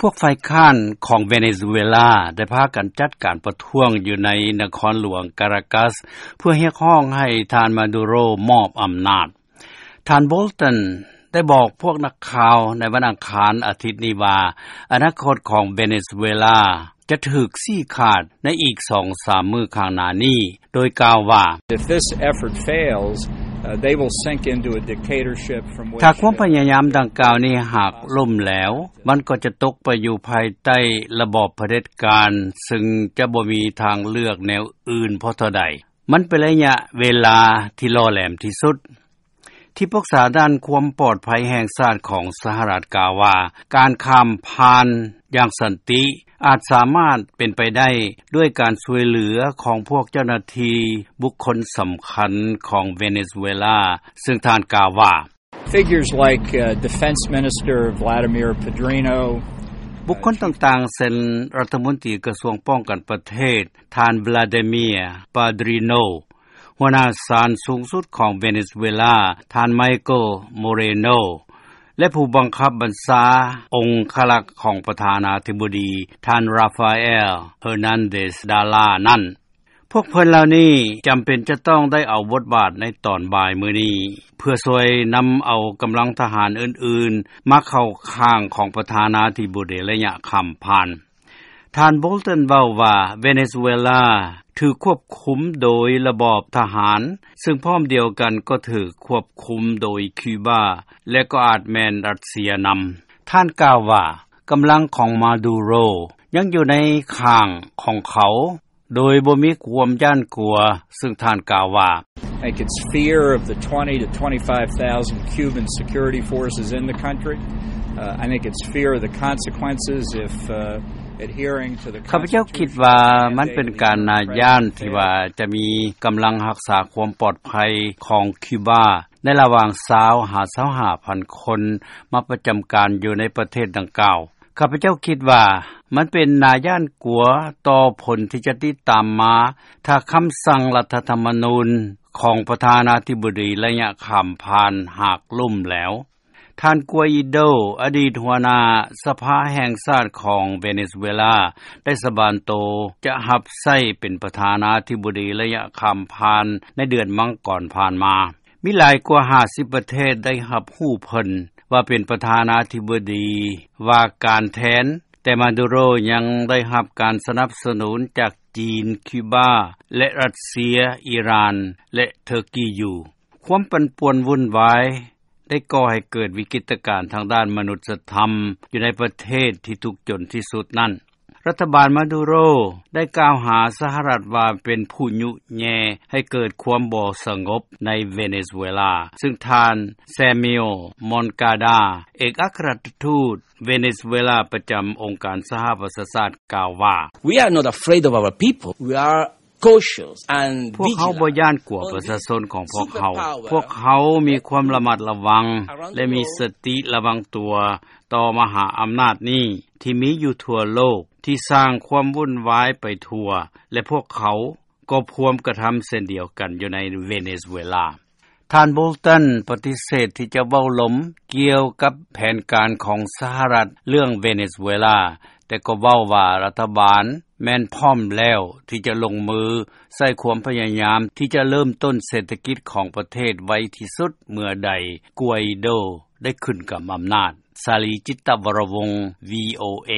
ພວກຝ່າຍຄ້ານຂອງເວເນຊູເອລາ ໄດ້ພາກັນຈັດການປະທ້ວງຢູ່ໃນນະຄອນຫຼວງກາຣາກັສ ເພື່ອຮຽກຮ້ອງໃຫ້ທ່ານມາດູໂຣມອບອຳນາດ. ທ່ານໂບລຕັນ ໄດ້ບອກພວກນັກຂ່າວໃນວັນອັງຄານອາທິດນີ້ວ່າ ອະນາຄົດຂອງເວເນຊູເອລາ ຈະຖືກຊີ້ຂາດໃນອີກສອງສາມມື້ຂ້າງໜ້ານີ້ ໂດຍກ່າວວ່າ If this effort fails, uh, they will sink into a dictatorship from which ຖ້າຄວາມພະຍາຍາມດັ່ງກ່າວນີ້ຫາກລົ້ມແຫຼວ ມັນກໍຈະຕົກໄປຢູ່ພາຍໃຕ້ລະບອບຜະເດັດການ ຊຶ່ງຈະບໍ່ມີທາງເລືອກແນວອື່ນພໍເທົ່າໃດ. ມັນເປັນໄລຍະເວລາທີ່ຫຼໍ່ແຫຼມທີ່ສຸດ. ທີ່ປຶກສາດ້ານຄວາມປອດໄພແຫ່ງຊາດຂອງສະຫະລັດກ່າວວ່າ ການຂ້າມຜ່ານຢ່າງສັນຕິອາດສາມາດເປັນໄປໄດ້ດ້ວຍການຊ່ວຍເຫຼືອຂອງພວກເຈົ້າໜ້າທີ່ບຸກຄົນສຳຄັນຂອງເວເນຊູເອລາ ຊຶ່ງທ່ານກ່າວວ່າ Figures like, uh, Defense Minister Vladimir Padrino, ບຸກຄົນຕ່າງໆ ເຊັ່ນ ລັດຖະມົນຕີກະຊວງປ້ອງກັນປະເທດ ທ່ານ Vladimir Padrino, ຫົວໜ້າສານສູງສຸດຂອງເວເນຊູເອລາ ທ່ານ Michael Moreno ແລະ ຜູ້ບັງຄັບບັນຊາອົງຄະລັກຂອງປະທານາທິບໍດີ ທ່ານ Rafael Hernandez Dala ນັ້ນ. ພວກເພິ່ນເຫຼົ່ານີ້ຈຳເປັນຈະຕ້ອງໄດ້ເອົາບົດບາດໃນຕອນບ່າຍມື້ນີ້ ເພື່ອຊ່ວຍນຳເອົາກຳລັງທະຫານອື່ນໆ ມາເຂົ້າຂ້າງຂອງປະທານາທິບໍດີໄລຍະຂ້າມຜ່ານ. ທ່ານ ໂບລຕັນ ເວົ້າວ່າ ເວເນຊູເອລາຖືກຄວບຄຸມໂດຍລະບອບທະຫານ ຊຶ່ງພ້ອມດຽວກັນກໍຖືກຄວບຄຸມໂດຍຄິວບາ ແລະ ກໍອາດແມ່ນຣັດເຊຍນຳ. ທ່ານກ່າວວ່າ ກຳລັງຂອງມາດູໂຣຍັງຢູ່ໃນຂ້າງຂອງເຂົາ ໂດຍບໍ່ມີຄວາມຢ້ານກົວ, ຊຶ່ງທ່ານກ່າວວ່າ I think it's fear of the twenty to twenty-five thousand Cuban security forces in the country. Uh, I think it's fear of the consequences if, uh, adhering to the ຂ້າພະເຈົ້າຄິດວ່າມັນເປັນການໜ້າຢ້ານທີ່ວ່າຈະມີກຳລັງຮັກສາຄວາມປອດໄພຂອງຄິວບາ ໃນລະຫວ່າງຊາວຫາຊາວຫ້າພັນຄົນມາປະຈຳການຢູ່ໃນປະເທດດັ່ງກ່າວ. ຂ້າພະເຈົ້າຄິດວ່າມັນເປັນໜ້າຢ້ານກົວຕໍ່ຜົນທີ່ຈະຕິດຕາມມາ ຖ້າຄຳສັ່ງລັດຖະທຳມະນູນຂອງປະທານາທິບໍດີໄລຍະຂ້າມຜ່ານຫາກລົ້ມແຫຼວ. ທ່ານ ກວາອີໂດ ອະດີດຫົວໜ້າສະພາແຫ່ງຊາດຂອງເວເນຊູເອລາ ໄດ້ສາບານໂຕຈະຮັບໃຊ້ເປັນປະທານາທິບໍດີໄລຍະຂ້າມຜ່ານໃນເດືອນມັງກອນຜ່ານມາ. ມີຫຼາຍກວ່າຫ້າສິບປະເທດໄດ້ຮັບຮູ້ເພິ່ນວ່າເປັນປະທານາທິບໍດີວ່າການແທນ, ແຕ່ມາດູໂຣຍັງໄດ້ຮັບການສະໜັບສະໜູນຈາກຈີນ, ຄິວບາ ແລະ ຣັດເຊຍ, ອີຣານ ແລະ ເທີກີຢູ່. ຄວາມປັ່ນປ່ວນວຸ່ນວາຍໄດ້ກໍ່ໃຫ້ເກີດວິກິດຕະການທາງດ້ານມະນຸດສະທຳຢູ່ໃນປະເທດທີ່ທຸກຈົນທີ່ສຸດນັ້ນ. ລັດຖະບານມາດູໂຣໄດ້ກ່າວຫາສະຫະລັດວ່າເປັນຜູ້ຍຸແຍ່ໃຫ້ເກີດຄວາມບໍ່ສະຫງົບໃນເວເນຊູເອລາ, ຊຶ່ງທ່ານ ແຊມມິວ ມອນກາດາ ເອກອັກຄະລັດຖະທູດເວເນຊູເອລາປະຈຳອົງການສະຫະປະຊາຊາດ ກ່າວວ່າ We are not afraid of our people. We are cautious and vigilant. ພວກເຮົາບໍ່ຢ້ານກົວປະຊາຊົນຂອງພວກເຮົາ. ພວກເຮົາມີຄວາມລະມັດລະວັງ ແລະ ມີສະຕິລະວັງຕົວຕໍ່ມະຫາອຳນາດນີ້ ທີ່ມີຢູ່ທົ່ວໂລກ ທີ່ສ້າງຄວາມວຸ່ນວາຍໄປທົ່ວ ແລະ ພວກເຂົາກໍພວມກະທຳເຊັ່ນດຽວກັນຢູ່ໃນເວເນຊູເອລາ. ທ່ານ ໂບລຕັນ ປະຕິເສດທີ່ຈະເວົ້າລົມກ່ຽວກັບແຜນການຂອງສະຫະລັດເລື່ອງເວເນຊູເອລາ, ແຕ່ກໍເວົ້າວ່າລັດຖະບານແມ່ນພ້ອມແລ້ວທີ່ຈະລົງມືໃຊ້ຄວາມພະຍາຍາມທີ່ຈະເລີ່ມຕົ້ນເສດຖະກິດຂອງປະເທດໄວທີ່ສຸດເມື່ອໃດ ກວາອີໂດ ໄດ້ຂຶ້ນກັບອຳນາດ. ສາລີ ຈິດຕະວໍລະວົງ ວີໂອເອ.